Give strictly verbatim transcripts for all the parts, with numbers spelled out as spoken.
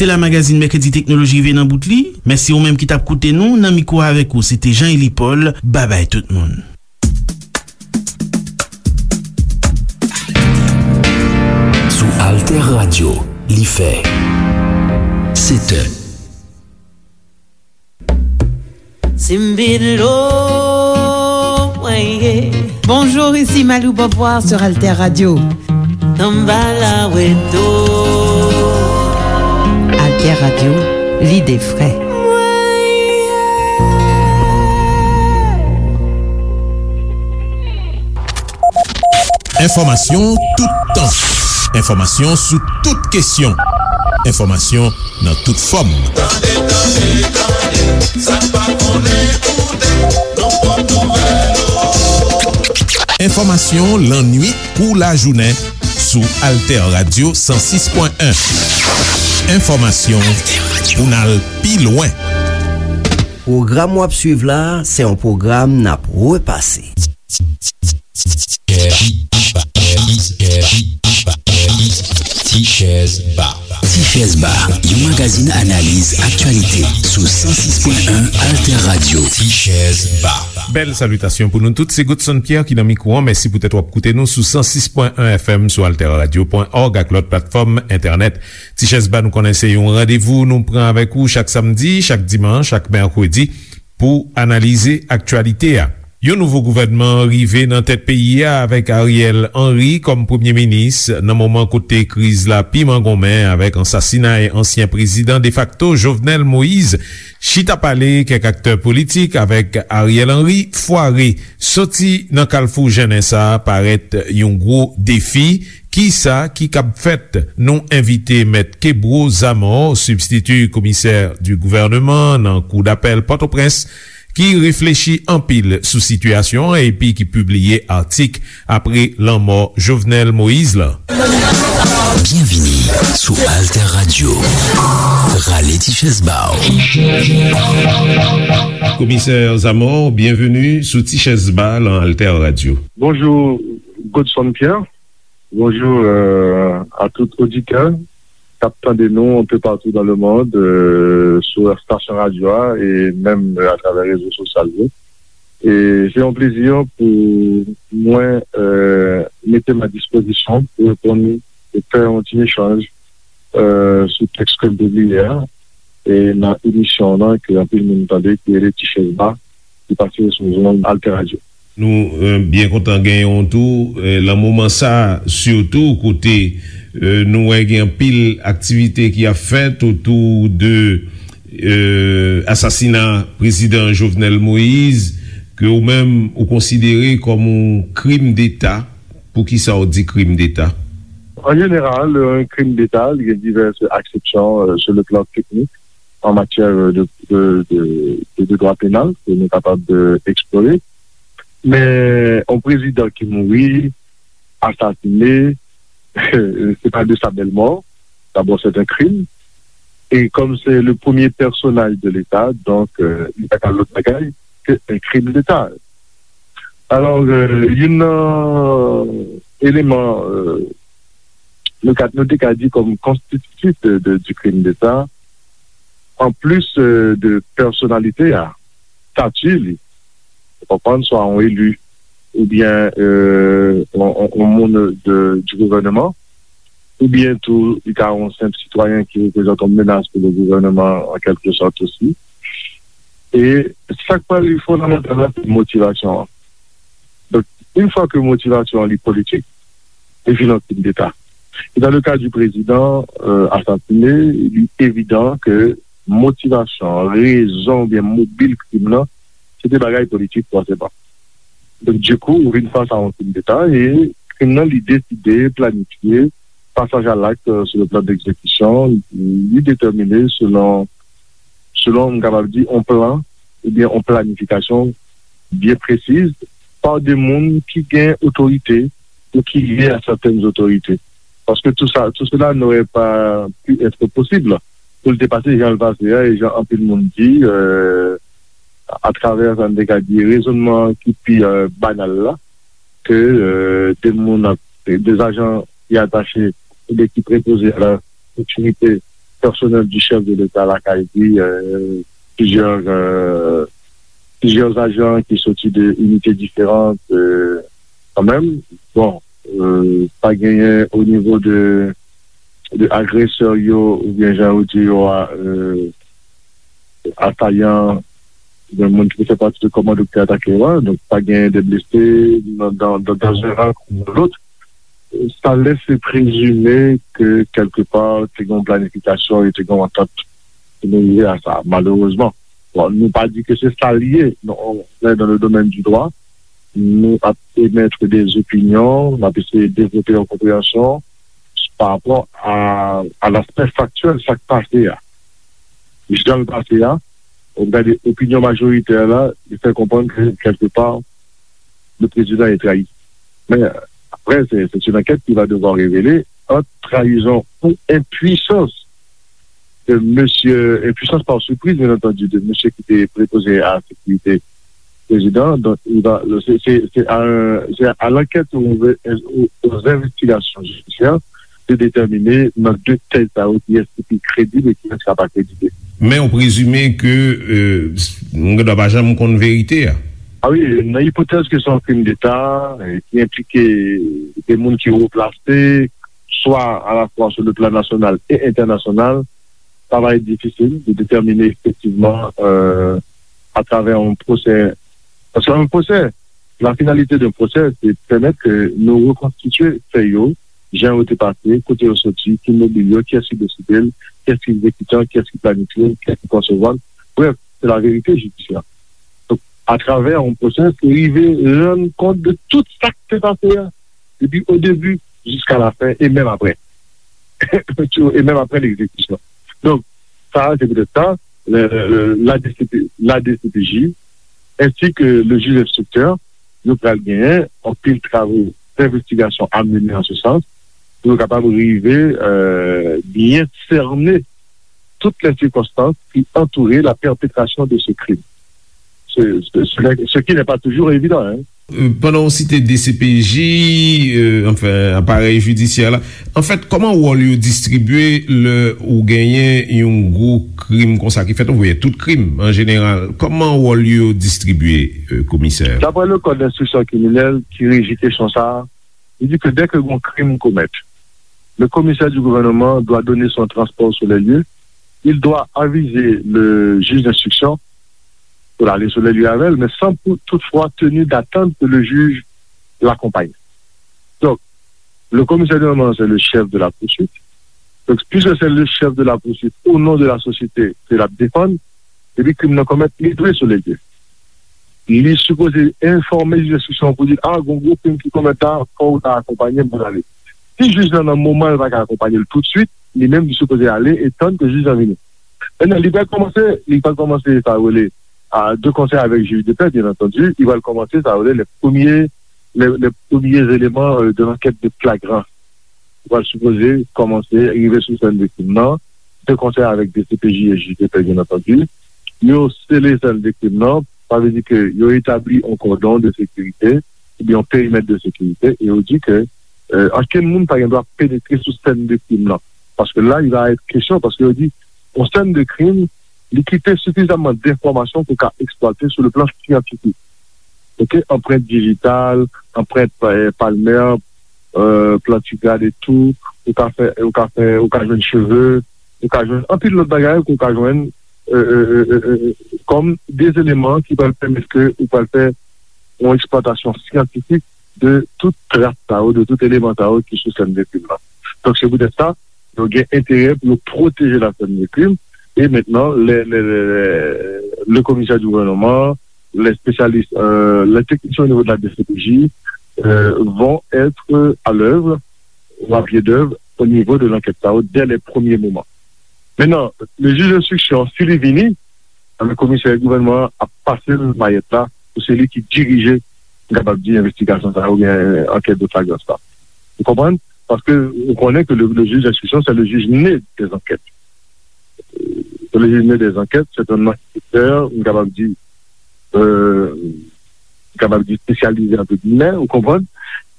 Te la magazin Mèkredi Teknoloji rive nan bout li. Mèsi ou menm ki t ap koute nou. Nan mikwo avèk ou, se te Jean Élie Paul. Babay tout moun. Sou Alter Radio, li fè sèt è. Simbilo, mwen ye. Bonjour, ici Malou Beauvoir sur Alter Radio. Tambala weto. Alter Radio, l'idée frais. Mwen ye. Enfòmasyon toutan. Enfòmasyon sou tout kesyon. Enfòmasyon nan tout fòm. Tande, tande, tande, sa n pa konnen koute, nou pot nouvèl ou. Enfòmasyon lannwit kou lajounen sou Alter Radio san sis pwen en. Enfòmasyon pou n al pi lwen. Pwogram w ap swiv la, se yon pwogram n ap repase. Tichèz Ba. Tichèz Ba, yon magazin analiz aktyalite sou san sis pwen en Alter Radio. Tichèz Ba. Bèl salitasyon pou nou tout. Se Godson Pierre ki nan mikwo an. Mèsi poutèt w ap koute nou sou san sis pwen en F M, sou alter radio pwen org ak lòt platfòm entènèt. Tichèz Ba, nou konnen se yon randevou nou pran avèk ou chak samdi, chak dimanch, chak mèkredi pou analize aktyalite a. Yon nouvo gouvènman rive nan tèt peyi a avèk Ariel Henry kòm premye minis, nan moman kote kriz la pi mangonmen avèk ansasinay ansyen prezidan defakto Jovenel Moïse. Chita pale kèk aktè politik avèk Ariel Henry fware. Soti nan kalfou jennen sa a parèt yon gwo defi. Kisa ki kab fèt? Nou envite Mèt Kebro Zamor, sibstiti komisè di gouvèneman nan Kou Dapèl Pòtoprens, ki reflechi anpil sou sitiyasyon an epi ki pibliye atik apre lanmò Jovenel Moïse la. Byenvini sou Alter Radio. Rale ti chèz ba w. Komisè Zamor, byenveni sou Ti Chèz Ba lan Alter Radio. Bonjou, Godson Pierre. Bonjou, euh, a tout oditè k ap tande nou un peu partout dans le monde, euh, sou estasyon radyo a e menm, euh, atravè rezo sosyal yo. E se yon plezi pou mwen, euh, mete m a dispozisyon pou reponn e fè yon ti echanj, euh, sou tèks ke m pibliye a, e nan emisyon an ke anpil moun tande, ki rele Ti Chèz Ba, ki pase sou zonn Alter Radio. Nou, euh, byen kontan genyen w tou, euh, lan moman sa a, sitou kote, euh, nou wè gen anpil aktivite ki ap fèt otou de, euh, asasina prezidan Jovenel Moïse, ke ou menm ou konsidere kòm yon krim deta. Poukisa w di krim deta? An jeneral, yon krim deta, li gen divès aksepsyon, euh, sur le plan technique, en matière de, de, de, de, de droit pénal, ke nou kapab, euh, eksplore. Men, yon prezidan ki mouri, asasine, se pa de sa bèl mò. Dabò, c'est un crime. E kòm se le premye pèsonaj de Leta, donk, euh, li pa ka lòt bagay ke un crime d'État. Alò, euh, youn nan eleman, euh, nou ka, nou te ka di kòm konstititif de, de, du crime d'État, an plis, euh, de pèsonalite a, stati li, ou konprann, swa yon eli, oubyen, euh, yon, yon, yon moun de, du gouvèneman, oubyen tou, li ka yon senp sitwayen ki reprezante yon menas pou le gouvèneman, an kèlke sòt osi. E sa k pral fondamantal la, se motivasyon an. Donk, yon fwa ke motivasyon an li politik, li vin yon krim deta. E dans le cas du président, euh, assassiné, li evidan ke motivasyon, rezon oubyen mobil krim nan, se te bagay politik fòseman. Donk, dikou, ou vin fas a yon krim deta e krim nan, li deside, planifye, pasaj a lakt, euh, sou le plan d'exécution, li detèmine selon, selon, m kapab di, yon plan oubyen yon planifikasyon byen presiz pa de moun ki gen otorite ou ki lye a sètèn otorite. Paske tout sa, tout cela n'aurait pas pu être possible pou l te pase jan l pase a, e jan anpil moun di, euh, atravè sa n te ka di rezònman ki pi, euh, banal la, ke, euh, de moun ap, de ajan ki atache oubyen ki prepoze a la sekirite pèsonèl di chèf de Leta lakay li, euh, plizyè, euh, plizyè ajan ki soti de inite diferan, euh, kanmenm. Bon, euh, pa genyen o nivo de, de agresè yo, oubyen jan yo di yo a, euh, asayan, oubyen moun ki fè pati de kòmando ki te atake yo a. Donk, pa genyen de blese nan, dans, dans, dans un ran ou dans l'autre. Sa lese prezime ke kèlkepa te gen yon planifikasyon e te gen yon antant pou nou rive a sa, malerezman. Bon, nou pa di ke se sa l ye, non, on est dans le domaine du droit, nou ap emèt de opinyon, n ap eseye devlope yon konpreyansyon pa rapò a, a laspè faktyèl, sa k pase a. Jan l pase a, ou gade opinyon majoritè la, li fè konprann ke kèlkepa, le président est trahi. Mais après, c'est c'est une enquête qui va devoir révéler entre trahison ou impuissance de monsieur, impuissance par surprise, bien entendu, de monsieur qui était préposé à la sécurité président. Donc, il va, c'est c'est- c'est à, un- c'est à l'enquête aux, aux- aux investigations judiciaires de déterminer dans deux têtes ça qui est qui est crédible et qui est pas crédible. Men ou prezime ke euh, moun gen dwa pa janm konn verite a. Ah oui, nan ipotèz ke se yon krim d'État, eh, ki enplike de moun ki wo plase, swa à la fois sur le plan national et international, sa va être difficile de déterminer effectivement euh, à travers un procès. Parce qu'un procès, la finalité d'un procès, c'est de permettre que nous reconstituer fait yo, jan yo te pase, kote yo soti, ki mobil yo, kiyès ki deside l, kiyès ki egzekitan, kiyès ki planifye l, kiyès ki konsevwa l. Bref, c'est la vérité judiciaire. Donc, à travers un procès, se rive rann kont de tout sa ki te pase a, depi o debi jiska la fen e menm apre. E menm apre legzekitisyon. Donk, sa, se poutèt sa, le- le- la D C P, la D C P J, ensi ke le jij enstriktè, yo pral genyen anpil travo d'investigasyon a mennen an se sans pou yo kapab rive euh, byen sène tout les circonstances qui entouraient la perpétration de ce crime. Ce, ce, ce n'est- ce qui n'est pas toujours évident. Hein. Euh, pandan w site D C P J, euh, anfen, aparèy jidisyè la, anfèt, kòman wòl yo distribye lè ou genyen yon gwo krim konsa ki fèt, oubyen tout krim an jeneral? Kòman wòl yo distribye, euh, komisè? D'après le code d'instruction criminelle qui régit question ça, il dit que dès que un crime commet, le commissaire du gouvernement doit donner son transport sur les lieux, il doit aviser le juge d'instruction pour aller sur les lieux avec elle, mais sans pour- toutefois tenir d'attendre que le juge l'accompagne. Donc, le commissaire du gouvernement, c'est le chef de la poursuite. Donc, puisque c'est le chef de la poursuite, au nom de la société ke l ap defann, epi krim nan komèt, li dwe sou lege. Li sipoze enfòme jij enstriksyon pou di, a, gon gwo krim ki komèt la, fò w ta akonpanye m pou n ale. Si jij lan nan moman l pa ka akonpanye l toutswit, li menm li sipoze ale e tann ke jij lan vini. Mentnan, li pral kòmanse, li pral kòmanse sa yo rele a de konsè avèk jij de pè, byen antandi, li pral kòmanse sa yo rele les premiers, les, les premiers éléments euh, de l'enquête de flagrance. Li pral sipoze kòmanse rive sou sèn de krim nan, de konsè avèk D C P J e jij de pè, byen antandi. Yo sele sèn de krim nan, sa vle di ke yo etabli yon kòdon de sekirite, oubyen yon perimèt de sekirite, e yo di ke euh, ankenn moun pa gen dwa penetre sou sèn de krim nan. Paske la, il va être question, paske yo di, yon sèn de krim, li kite sifizamman denfòmasyon pou ka eksplwate sou le plan syantifik. Ok, anprent dijital, anprent euh, palmè, euh, plantigrad etou, ou ka fè, ou ka fè, ou ka jwenn cheve, ou ka jwenn anpil lòt bagay, ou ka jwenn euh, euh, euh, euh, euh, kòm de eleman ki pral pèmèt ke ou pral fè yon eksplwatasyon syantifik de tout tras sa yo, de tout eleman sa yo ki sou sèn de krim nan. Donk, se poutèt sa, yo gen enterè pou yo pwoteje la sèn de krim. E mentnan, le, le, le, le, le komisè di gouvènman, les spécialistes, euh, les techniciens au niveau de la D C P J euh, vont être à l'œuvre ou à pied d'œuvre au niveau de l'enquête sa yo dès les premiers moments. Mentnan, le jij enstriksyon, si li vini, anben komisè gouvènman an ap pase l mayèt la pou se li ki dirije, m kapab di, envestigasyon sa yo oubyen ankèt de flagrans la. Ou konprann? Paske ou konnen ke le, le jij enstriksyon, se le jij ne des enquêtes. Se le jij ne des enquêtes, se yon anketè, m kapab di, euh, m kapab di espesyalize, entre guillemets, ou konprann?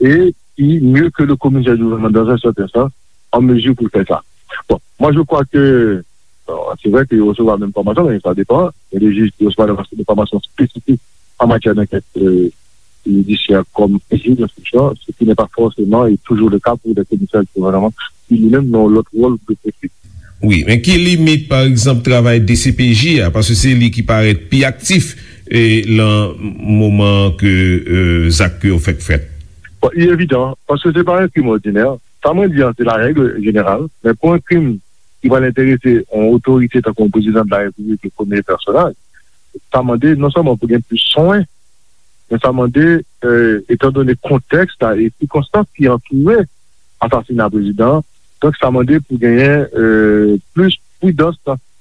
E ki, mieux que le commissaire du gouvernement dans un certain sens, an mezi pou l fè sa. Bon, moi je crois que, bon, c'est vrai que yo resevwa menm fòmasyon, men sa depan. Il y a des juges qui reçoivent des formations spécifiques en matière d'enquête euh, judiciaire comme juge d'instruction, ce qui n'est pas forcément et toujours le cas pour des commissaires du gouvernement qui lui-même n'ont l'autre rôle de politique. Wi, men ki limit, pa egzanp, travay D C P J a, paske se li ki parèt pi aktif e lan moman ke euh, zak yo fèk fèt. Bon, il est évident, parce que c'est pas un crime ordinaire. Sa mwen di an, se la règle générale, men pou yon krim ki pral enterese yon otorite tankou yon prezidan de la repiblik, le premye pèsonaj, sa mande non sèlman pou gen plis swen, men sa mande, euh, etan done kontèks la e sikonstans ki antoure asasina prezidan an, donk sa mande pou genyen euh, plis pridans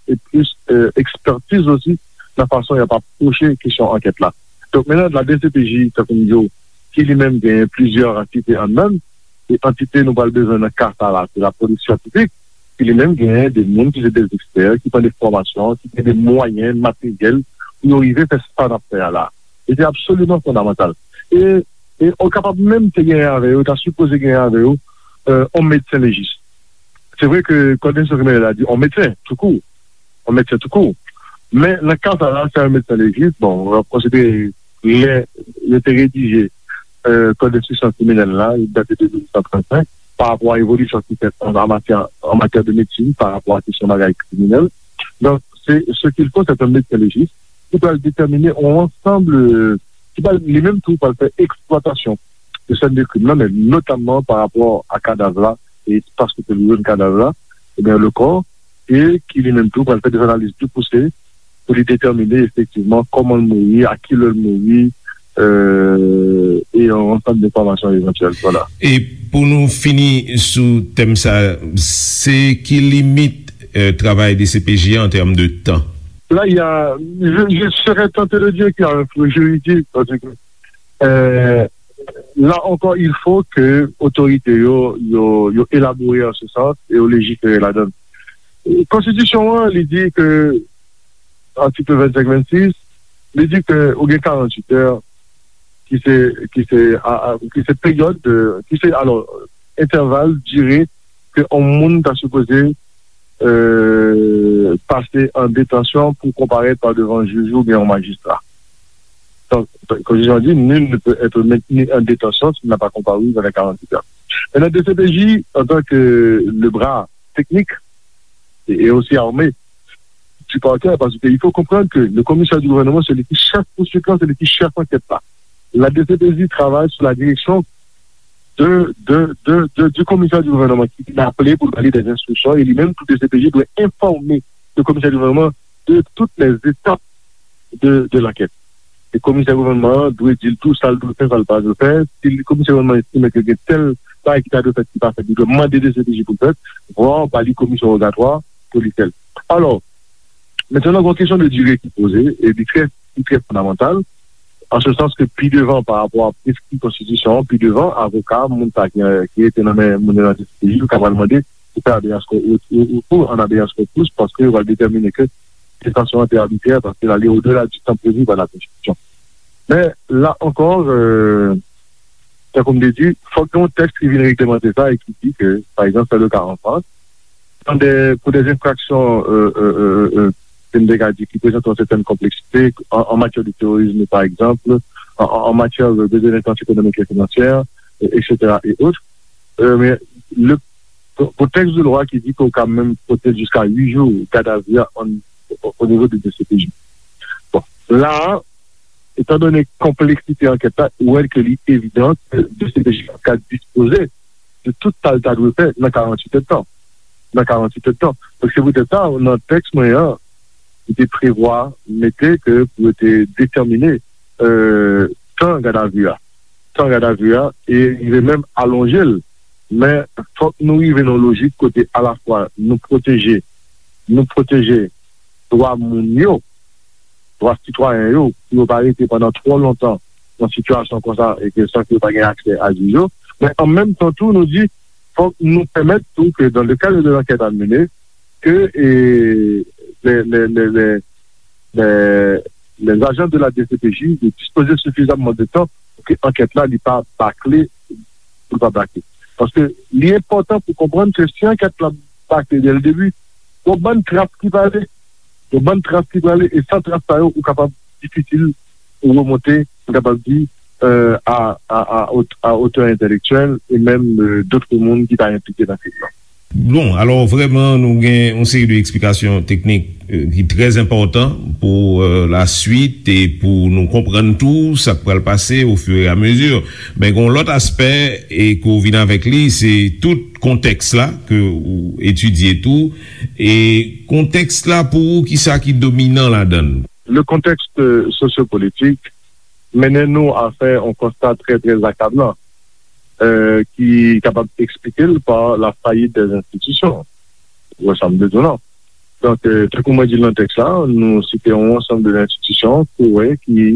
e plis euh, ekspertiz osi nan fason y ap apwoche kesyon ankèt la. Donk, menm la D C P J, tankou m di w, ki li menm genyen plizyè antite anndan l, e antite nou pral bezwen nan ka sa la, se lapolis syantifik, ki li menm genyen de moun ki se de ekspè, ki pran de fòmasyon, ki gen de mwayen materyèl pou yo rive fè sa n ap fè a la. E se absoliman fondamantal. E, e ou kapab menm te genyen avè yo, ta sipoze genyen avè yo, euh, yon medsen lejis. Se vre ke kòd enstriksyon kriminèl la di yon medsen, toukou, yon medsen toukou. Men nan ka sa la, se yon medsen lejis, bon, w ap konsidere lè yo te redije euh, kòd enstriksyon kriminèl la, li date de mil nèf san trannsenk, pa rapò a evolisyon ki fèt an, an matyè, an matyè de medsin, pa rapò a kesyon bagay kriminèl. Donk, se ce qu'il faut, c'est un médecin légiste ki pral detèmine yon ansanm, euh, ki pral li menm tou pral fè eksplwatasyon de sèn de krim nan, men notamman pa rapò a kadav la e espas kote yo jwenn kadav la, ebyen, le corps, e ki li menm tou pral fè de analiz pli pouse pou li detèmine efektivman kòman l mouri, a ki lè l mouri, euh, e yon ansanm de enfòmasyon evantyèl. Vwala. E pou nou fini sou tèm sa, se ki limit euh, travay D C P J an tèm de tan? Là, il y a, je, je serais tenté de dire qu'il y a un flou juridique, parce que euh, là encore, il faut que otorite yo, yo, yo elabore an se sans e yo lejifere ladan l. Konstitisyon an, li di ke, atik vennsenk, vennsis, li di ke ou gen karannwit è ki se, ki se, a, a, ki se peryòd, de, ki se, alò, entèval, dire ke yon moun ta sipoze euh, pase an detansyon pou konparèt pa devan jij oubyen yon majistra. Donk, konstitisyon an di, nul ne peut être maintenu en détention s'il n'a pas comparu dans les quarante-huit heures. Maintenant, D C P J, en tant que le bras technique et, et aussi armé du parquet, parce qu'il faut comprendre que le commissaire du gouvernement, c'est lui qui chef poursuite, c'est lui qui chef enquête là. La D C P J travaille sous la direction de, de, de, de, du commissaire du gouvernement ki vin aple pou l ba li des instructions, e li menm tou D C P J dwe enfòme le commissaire du gouvernement de toutes les étapes de, de l'enquête. E komisè gouvènman an dwe di l tou sa l dwe fè, sa l pa dwe fè. Si komisè gouvènman estime ke gen tèl bagay ki ta dwe fèt ki pa fèt, li dwe mande D C P J pou l fèt, vwa ba li komisyon wogatwa pou li fè l. Alò, mentnan gen yon kesyon de dire ki poze, e li trè, li trè fondamantal, an se sans ke pi devan pa rapò a preskri konstitisyon an, pi devan, avoka, moun sa ki, ki rete nan men moun yo nan D C P J, yo ka pral mande pou fè habeas corpus, ou, ou, ou an habeas corpus, paske yo pral detèmine ke detansyon an te abitrè, paske l ale odela di tan previ pa la konstitisyon. Men, la ankò, euh, tankou m te di, fòk gen yon tèks ki vin reglemante sa e ki di ke, pa egzanp, se le ka an Frans, dans des, pour des infractions, euh, euh, euh, euh, euh, ke m te ka di, ki prezante yon sètèn konpleksite, an, an matyè de terorizm, pa egzanp, an, an, an matyè de, de delenkans ekonomik e finansyè, euh, et cetera, et autres. Euh, men, le, pou, pou tèks de lwa ki di ke w ka menm pote l jiska uit jou gadavi a an, o, o nivo de D C P J. Bon, la a, etan done konpleksite ankèt la, ou wè ke li evidan ke D C P J ka dispoze de tout sa l ta dwe fè nan karannwit èdtan. Nan karannwit èdtan. Donk, se poutèt sa, nan tèks mwen an, li te prevwa mete ke pou yo te detèmine, euh, tan gadavi a. Tan gadavi a, e rive menm alonje l. Men, fòk nou rive nan yon lojik kote alafwa nou pwoteje, nou pwoteje dwa moun yo, dwa sitwayen yo, pou yo pa rete pandan twò lontan nan sitiyasyon konsa e ke san ke yo pa gen aksè a jij yo. Men an menm tan tou, nou di, fòk nou pèmèt tou ke dans le cadre de l'enquête à mener, ke, e, les, les, les, les, les, les agents de la D C P J de dispoze sifizamman de tan pou ke ankèt la, li pa bakle, pou l pa bakle. Paske li enpòtan pou konprann ke si ankèt la pa klè dès le début. Gon bann tras ki prale. Gon bann tras ki prale, e san tras sa yo, ou kapab difisil pou remonte, m kapab di, euh, a, a, a, ot- a otè entèlektyèl e menm, euh, dòt moun ki ta enplike nan kriz lan. Bon, alò, vrèman, nou gen yon seri de eksplikasyon teknik, euh, ki trè enpòtan pou, euh, laswit e pou nou konprann tou sa k pral pase au fur et à mesure. Men gen yon lòt aspè e ke w vin avèk li, se tout kontèks la ke w etidye tou. E kontèks la, pou ou, kisa ki dominan ladan l? Le contexte, euh, sociopolitique mennen nou a fè yon konsta trè, trè akablan, euh, ki kapab eksplike l pa la fayit dè enstitisyon. Ou wè sa m vle di w la. Donk, euh, tankou mwen di l nan tèks la, nou site yon ansanm de enstitisyon ke w wè ki,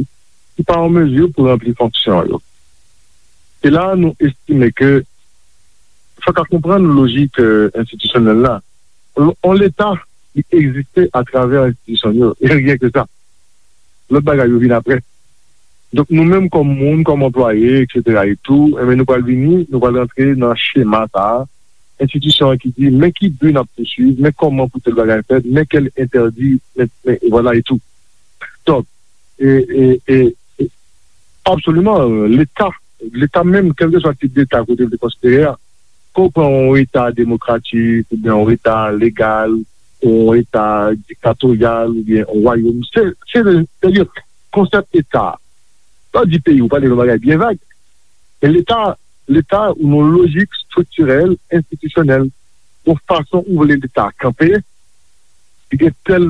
ki pa an mezi pou ranpli fonksyon yo. E la, nou estime ke fòk a konprann lojik, euh, enstitisyonèl la. On, on Leta, li egziste atravè enstitisyon yo. E ryen ke sa. Lòt bagay yo vin apre. Donk, nou menm kòm moun, kòm anplwaye, etsetera e tou, enben, nou pral vini, nou pral rantre nan chema sa a. Enstitisyon an ki di, men ki bi n ap pouswiv, men kòman pou tèl bagay fèt, men kèl entèdi, men, men, vwala e tou. Donk, e, e, e, e, absoliman, Leta, Leta menm, kèlkeswa tip Leta kote l te konsidere a, ke w pran yon Eta demokratik, oubyen yon Eta legal, yon Eta diktatoryal, oubyen yon wayòm, se, se, se, se konsèp Eta. Lè w di peyi, ou pale yon bagay byen vag. Men Leta, Leta, ou nan lojik estriktirèl, enstitisyonèl, yon fason ou vle Leta a kanpe, li gen tèl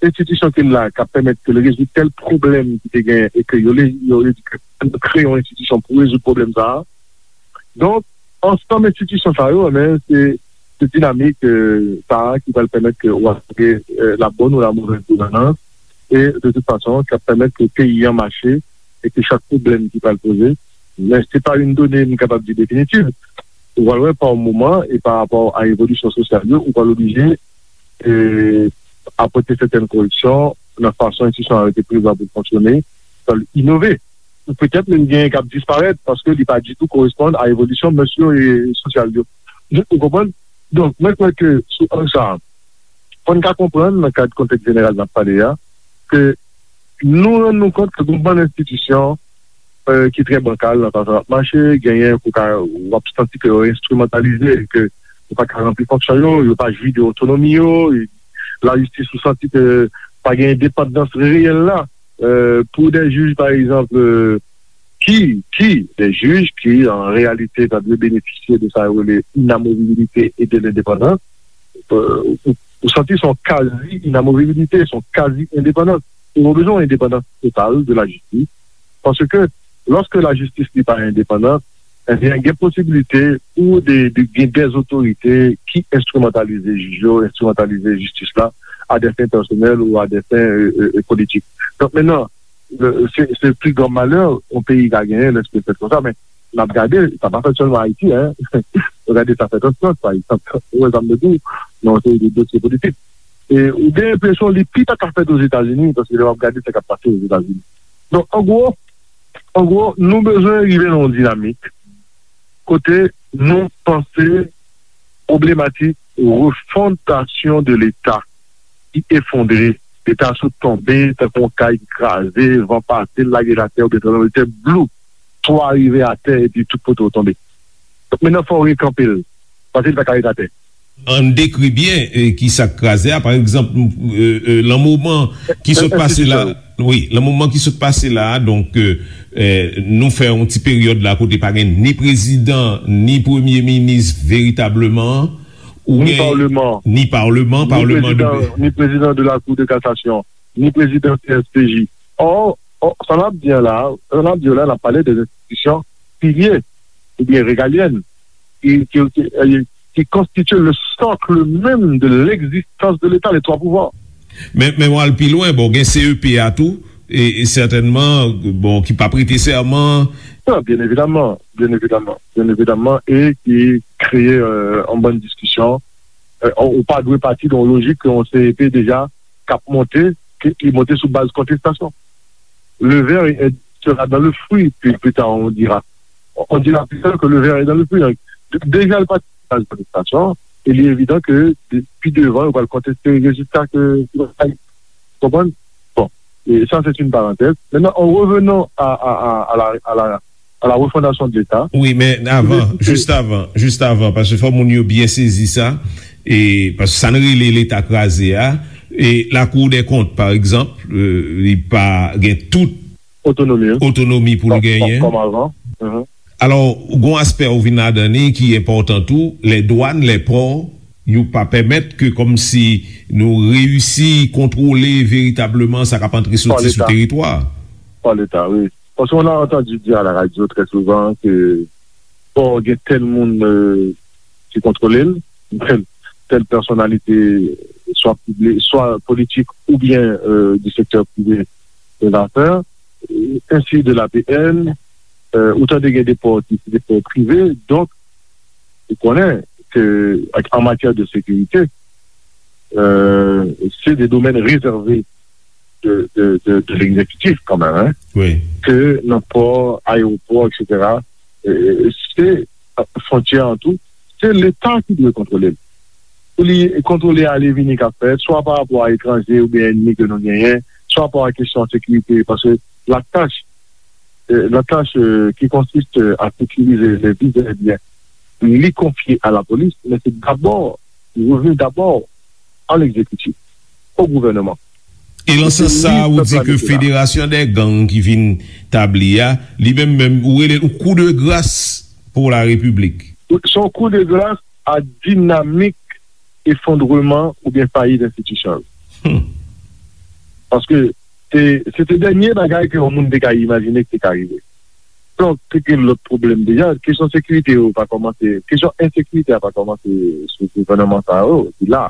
enstitisyon ke l la k ap pèmèt ke l rezoud tèl pwoblèm ki te gen e ke yo le-, yo le-, yo kreye yon enstitisyon pou rezoud pwoblèm sa a. Donk, ansanm enstitisyon sa yo, men, se, se dinamik, euh, sa a ki pral pèmèt ke w asire, euh, la bonne ou la mauvaise gouvernance, e de tout fason, k ap pèmèt ke peyi an mache e ke chak pwoblèm ki pral poze, men se pa yon done m kapab di definitiv. Ou pral wè pa yon moman, e pa rapò a evolisyon sosyal yo, ou pral oblije, e, apòte sètèn koreksyon nan fason enstitisyon an rete prezan pou l fonksyone, pou l inove. Ou petèt menm gen k ap disparèt paske li pa ditou koresponn a evolisyon mès yo e sosyal yo. Ou konprann? Donk, mwen kwè ke sou ang sa a, fò n ka konprann nan kad kontèks jeneral n ap pale a, ke nou rann nou kont ke gon bann enstitisyon, euh, ki trè bankal nan fason y ap mache, genyen ke w ka, w ap santi ke yo enstrimantalize, ke yo pa ka ranpli fonksyon yo, yo pa jwi de otonomi yo, e lajistis ou santi ke pa gen endepandans reyèl la, euh, pou de jij, pa egzanp, euh, ki, ki, de jij ki, an reyalite, ta dwe benefisye de sa yo rele inamovibilite e de lendepandans, euh, ou, ou santi se yon kazi inamovibilite, se yon kazi endepandans. Ou bezwen yon endepandans total de lajistis. Paske, lòske lajistis li pa endepandan, ebyen, gen posibilite pou de, de, gen dèzotorite ki enstrimantalize jij yo, enstrimantalize jistis la, a dè fen pèsonèl ou a dè fen, euh, euh, politik. Donk, mentnan, euh, se, se pi gran malè yon peyi ka genyen lèske l fèt konsa, men n ap gade, sa pa fèt sèlman Ayiti, en. Nou gade sa fèt an Frans, pa egzanp. Ou wè sa m vle di w, nan yon seri de dosye politik. E ou gen enpresyon li pi ta ka fèt Ozetazini, paske lè w ap gade sa k ap pase Ozetazini. Donk, an gwo, an gwo, nou bezwen rive nan yon dinamik kote nou panse pwoblematik refondasyon de Leta ki efondre. Leta sot tonbe tankou yon kay ki kraze, van pase, l lage l atè, oubyen tranblemanntè, blou, twa rive atè, epi tout kote w tonbe. Donk, mentnan, fò w rekanpe l, paske li pa ka ret atè. Ann dekri byen, eh, ki sa k kraze a. Pa egzanp, eh, eh, lan moman ki sot pase la, wi, lan moman ki sot pase la, donk, eh, eh, nou fè yon ti peryòd la kote pa gen ni prezidan, ni premye minis veritableman, ou ni gen paleman, ni paleman, ni paleman de prezidan, ni prezidan de la Cour de cassation, ni prezidan C S P J. Or, or, sa n ap di an la, sa n ap di an la, n ap pale de enstitisyon pilye oubyen regalyèn ki, ki, ki, eh, ki konstitye le socle même de l'existence de l'État, les trois pouvoirs. Men, men w al pi lwen, bon, gen C E P a tou, e, e sètènman, bon, ki p ap prete sèman. Non, byen evidaman, byen evidaman, byen evidaman, e ki kreye, euh, yon bann diskisyon. Euh, ou pa dwe pati de yon lojik ke yon C E P deja k ap monte, ke li monte sou baz kontestasyon. Le ver est, sera dans le fruit, puis plus tard on dira. On dira plus tard que le ver est dans le fruit. Deja l pati sou baz kontestasyon, E li evidan ke de- pi devan, yo pral konteste rezilta ke yo bay. Konprann? Bon, e sa, se yon parantèz. Maintenant, en revenant à, à, à, à la, à la, à la refondation de l'État. Wi, men avan, jis avan, jis avan, paske fò moun yo byen sezi sa, e paske sa n rele Leta kraze a, e Lakou dè Kont, pa egzanp, e, li pa gen tout otonomi, wi, otonomi pou l genyen. Kòm avan. Mhm. Alò, gon aspè ou vin ladan li ki enpòtan tou, lè dwàn, lè pò, yo pa pèmèt ke kòmsi nou reyisi kontwole veritableman sa k ap antre soti sou teritwa. Pa Leta, wi. Parce qu'on a entendu dire à la radio très souvent que pò gen tèl moun, euh, ki kontwole l, tèl, tèl pèsonalite, swa pibli-, swa politik oubyen, euh, du secteur privé de l'affaire, euh, ainsi de l'A P N, euh, ou tande gen de pò ki se de pò prive, donk, ou konnen ke an matyè de sekirite, euh, se de domèn rezève de, de, de, de l'exécutif kanmenm, hein, wi, ke nan pò, ayewopò, et cetera, euh, se, euh, fwontyè an tou, se Leta ki dwe kontwole l. Pou li kontwole ale vini k ap fèt, swa pa rapò a etranje oubyen ènmi ke nou genyen, swa pa rapò a kesyon sekirite, paske la tâche, euh, la tâche, euh, qui consiste à sécuriser les biens et les biens, li konfye a la polis, men se dabò, li revni dabò a l'exécutif, au gouvernement. E nan sans sa, ou di ke Federasyon dè Gang ki vin tabli a, li menm menm, ou rele l yon kou de gras pou la Repiblik. Se yon kou de gras a dinamik efondreman oubyen fayit enstitisyon yo. Hmm. Paske se, se te dènye bagay ke yon moun te ka imajine ki te ka rive. Donk, te gen lòt pwoblèm deja. Kesyon sekirite yo pa kòmanse, kesyon ensekirite a pa kòmanse sou gouvènman sa yo, li la.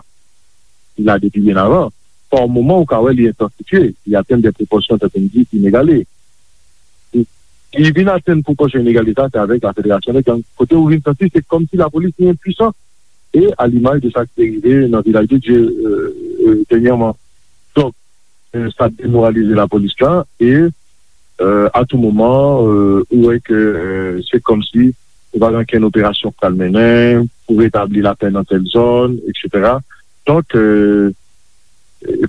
Li la depi byen avan. Pa moman, ou ka wè li entansifye, li atenn de pwopòsyon, tankou m di, inegale. Li, li vin atenn pwopòsyon inegale sa, se avèk la Federasyon dè Gang. Kote ou vin santi, se kòmsi lapolis li enpwisan. E a limaj de sa ki te rive nan Vilaj de Dye, euh, euh, dènyèman. Donk, euh, sa demoralize lapolis la e, euh, a tou moman, euh, ou wè ke, euh, se kòmsi ou pa gen okenn operasyon k pral mennen pou retabli lapè nan tèl zòn, et cetera. Donk, euh,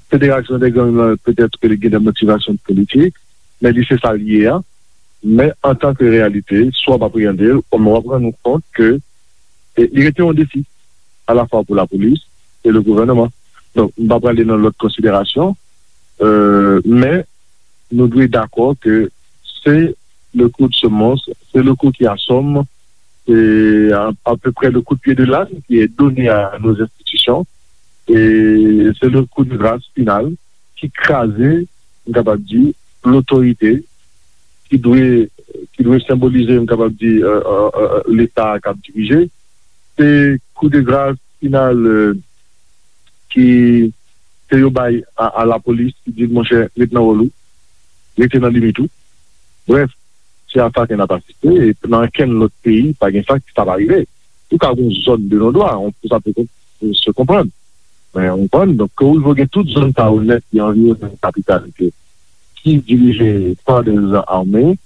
Federasyon dè Gang nan, petèt ke li gen de motivasyon politik, men li se sa l ye a. Men antanke reyalite, si w ap apreyande l, w ap rann ou kont ke, e, li rete yon defi, alafwa pou lapolis e le gouvènman. Donk, m pa prale nan lòt konsiderasyon, euh, men nou dwe dakò ke c'est le coup de semonce, c'est le coup qui assomme, c'est à, à peu près le coup de pied de l'âne qui est donné à nos institutions, et c'est le coup de grâce final ki kraze, m kapab di, lotorite ki dwe, ki dwe senbolize, m kapab di, euh, euh, euh, Leta k ap dirije. Se kou de gras final, euh, ki, ke yo bay a, a lapolis, ki di l, monchè, ret nan wòl ou, rete nan limit ou. Brèf, se a sa ke n ap asiste, e nan okenn lòt peyi, pa gen sa, sa pa rive. Ou ka gen yon zòn de non-dwa, on, sa pe kon-, se konprann. Men, ou konprann, donk, ke ou rive gen tout zòn sa yo nèt ki anviwonnen yon kapital ke, ki dirije pa de zan ame,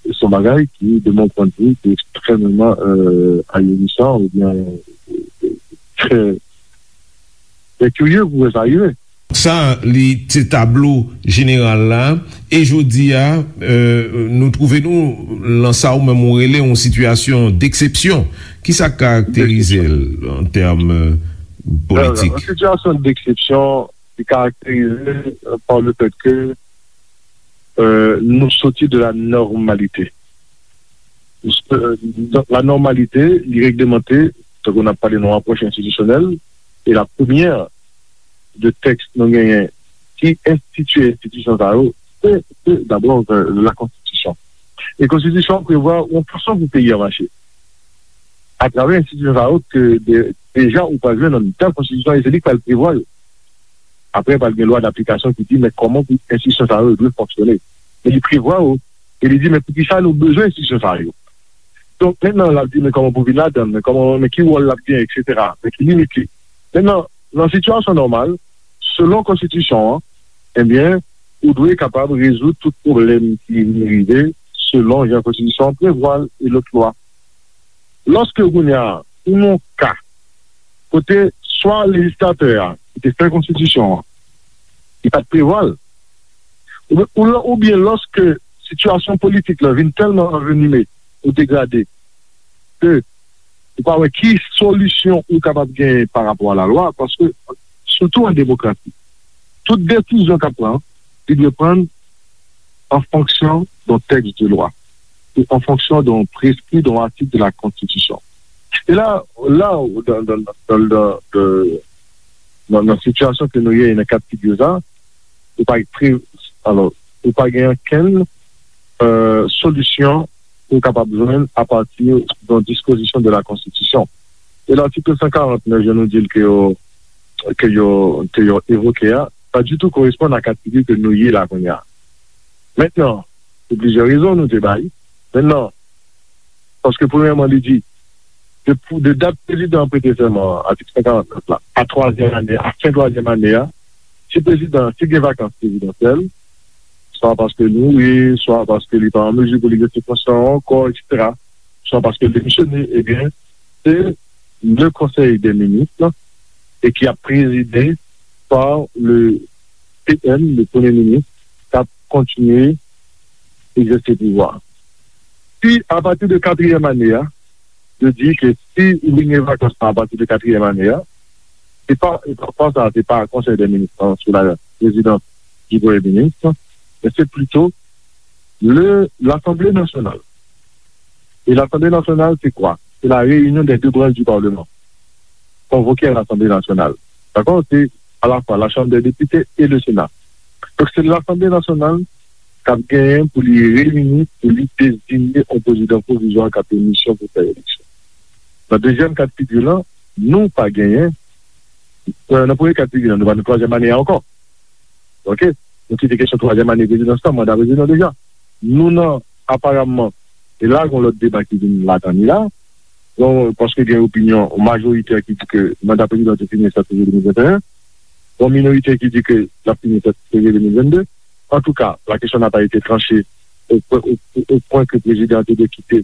se yon bagay ki, de mon point de vue, ki ekstrèmeman, euh, ahurissant oubyen, euh, trè, trè kirye pou wè sa rive. Sa, li se tablo jeneral la. E jodi a, euh, nou twouve nou lan sa ou menm ou rele yon sitiyasyon deksepsyon. Kisa k karakterize l an tèm, euh, politik? Yon sitiyasyon deksepsyon ki karakterize, euh, par le fait que, euh, nou soti de la normalité. Euh, donk, la normalité, li reglemante, tankou n ap pale nan apwòch enstitisyonèl, e la premyè de tèks nou genyen ki enstitye enstitisyon sa yo, se, se dabò, euh, la konstitisyon. E konstitisyon an prevwa yon fason pou peyi a mache. Atravè enstitisyon sa yo ke de-, deja ou pral jwenn nan tèl konstitisyon e se li k pral prevwa yo. Apre, pral gen lwa daplikasyon ki di, men kòman pou enstitisyon sa yo dwe fonksyone. Men li prevwa yo, e li di, men poukisa nou bezwen enstitisyon sa yo? Donk, mentnan, l ap di, men kòman pou vin ladan l, men kòman, men ki wòl l ap genyen, et cetera. Men ki limit li. Mentnan, nan sitiyasyon nòmal, selon konstitisyon an, ebyen, ou dwe kapab rezoud tout pwoblèm ki vin rive selon jan konstitisyon an prevwa l e lòt lwa. Lòske kounye a, ou nan yon ka kote swa lejislatè a ki te fè konstitisyon an, li pa t prevwa l, oubyen, oubyen lòske sitiyasyon politik la vin tèlman anvenime ou degrade ke ou pa wè ki solisyon ou kapab genyen pa rapò a lalwa, paske, sitou an demokrasi, tout desizyon k ap pran, li dwe pran an fonksyon d'un texte de loi, e an fonksyon d'un prescrit, d'un article de la Constitution. E la, la, dans, dans, dans, dans, dans, nan, nan sitiyasyon ke nou ye, nan ka d figi sa, ou pa pre, alò, ou pa gen okenn, euh, solisyon ou kapab jwenn apati de dispozisyon de la Konstitisyon. E latik san karant nèf, jan nou di l ke yo, ke yo, ke yo evoke a, pa ditou koresponn a ka d figi ke nou ye la kounye a. Mentnan, pou plizyè rezon nou te bay. Mentnan, paske premyèman, li di, de, de dat prezidan an prete sèman an, atik san karant nèf la, a twazyèm ane, a fen twazyèm ane a, si prezidan, si gen vakans prezidansyèl, swa paske li mouri, swa paske li pa an mezi pou li egzèse fonksyon an ankò, etsetera, swa paske l demisyone, ebyen, se le Conseil des ministres, e ki ap prezide par le P M, le Premye Minis, k ap kontinye egzèse pouvwa. Si, apati de katriyèm ane a, yo di ke si li gen vakans lan apati de katriyèm ane a, se pa, e pa, pa sa, se pa Konsèy dè Minis lan sou la prezidans di Premye Minis, men se plito le, l'Assemblée nationale. Et l'Assemblée nationale, c'est quoi? C'est la réunion des deux branches du Parlement. Convoquer à l'Assemblée nationale. D'accord? C'est à la fois la Chambre des députés et le Sénat. Donk, se Lasanble Nasyonal k ap genyen pou li reyini, pou li deziye yon prezidan pwovizwa k ap gen misyon pou fè eleksyon. Nan dezyèm ka d figi lan, nou pa genyen, euh, nan premye ka d figi lan, nou pa nan twazyèm ane a ankò. Oke? Nou kite kesyon twazyèm ane prezidans lan, manda prezidan deja. Nou nan, aparamman, e la, gen lòt deba ki vin ladan li la. Donk, paske gen opinyon majoritè ki di ke manda prezidan te fini sèt fevriye de mil venteyen. Gen minoritè ki di ke l ap fini sèt fevriye de mil vennde. Antouka, la question n'a pas été tranchée au, au, au, au point que prezidan an te dwe kite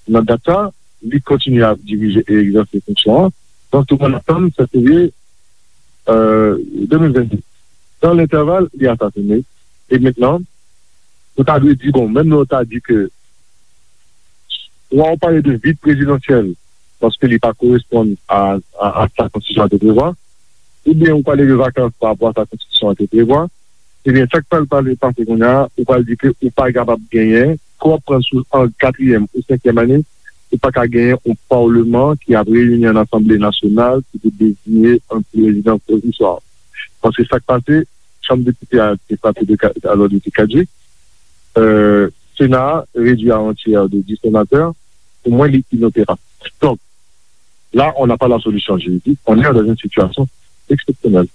nan dat sa. Li kontinye ap dirije e egzèse fonksyon an. Donk, tout moun atann sèt fevriye, euh, de mil vennde. Dans l'intervalle, li asasine. E mentnan, nou ta dwe di, bon, menm lè w ta di ke, swa w pale de vid prezidansyèl, paske li pa koresponn a, a, a sa konstitisyon an te prevwa, oubyen ou pale de vakans pa rapò a sa konstitisyon an te prevwa, ebyen, sa k pral pale pase kounye a, ou pral di ke ou pa kapab genyen, ke w ap pran sou an katriyèm ou senkyèm ane, ou pa ka genyen yon palman ki ap reyini an asanble nasyonal ki pou deziye yon prezidan pwovizwa. Paske sa k pase, chanm depite a te frape de ka-, alò, de te kadjik. Euh, Sena a redui a yon tyè de dis senatè. Pou mwen, li inoperab. Donk, là, on n'a pas la solution juridique, on est dans une situation exceptionnelle.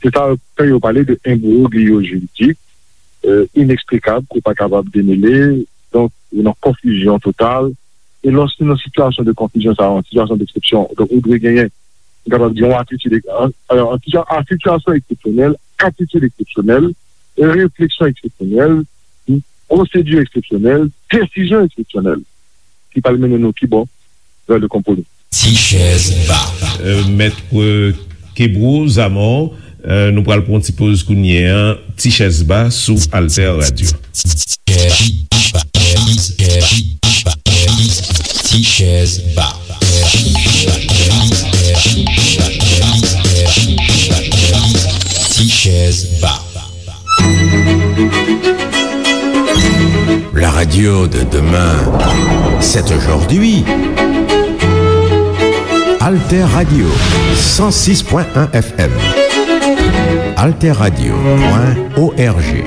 Se sa k fè yo pale de imbroglio juridik, euh, ineksplikab, ke w pa kapab demele. Donk, ou nan konfizyon total. E lòske nan sitiyasyon de konfizyon sa, yon sitiyasyon deksepsyon, donk, ou dwe genyen, ou kapab di, yon atitid, an, an, an sitiyasyon eksepsyonèl, atitid eksepsyonèl, refleksyon eksepsyonèl, pwosedi eksepsyonèl, desizyon eksepsyonèl ki pral mennen nou ki bò? Vè le konpwomi. Ti chèz ba. Euh, Mèt, euh, Kebro Zamò, euh, nou pral pran yon ti poz kounye a. Ti chèz ba sou Alter Radio. Ti chèz ba. Ti chèz ba. La radio de demain, c'est aujourd'hui. Alter Radio, cent six point un F M. Alter Radio point O R G.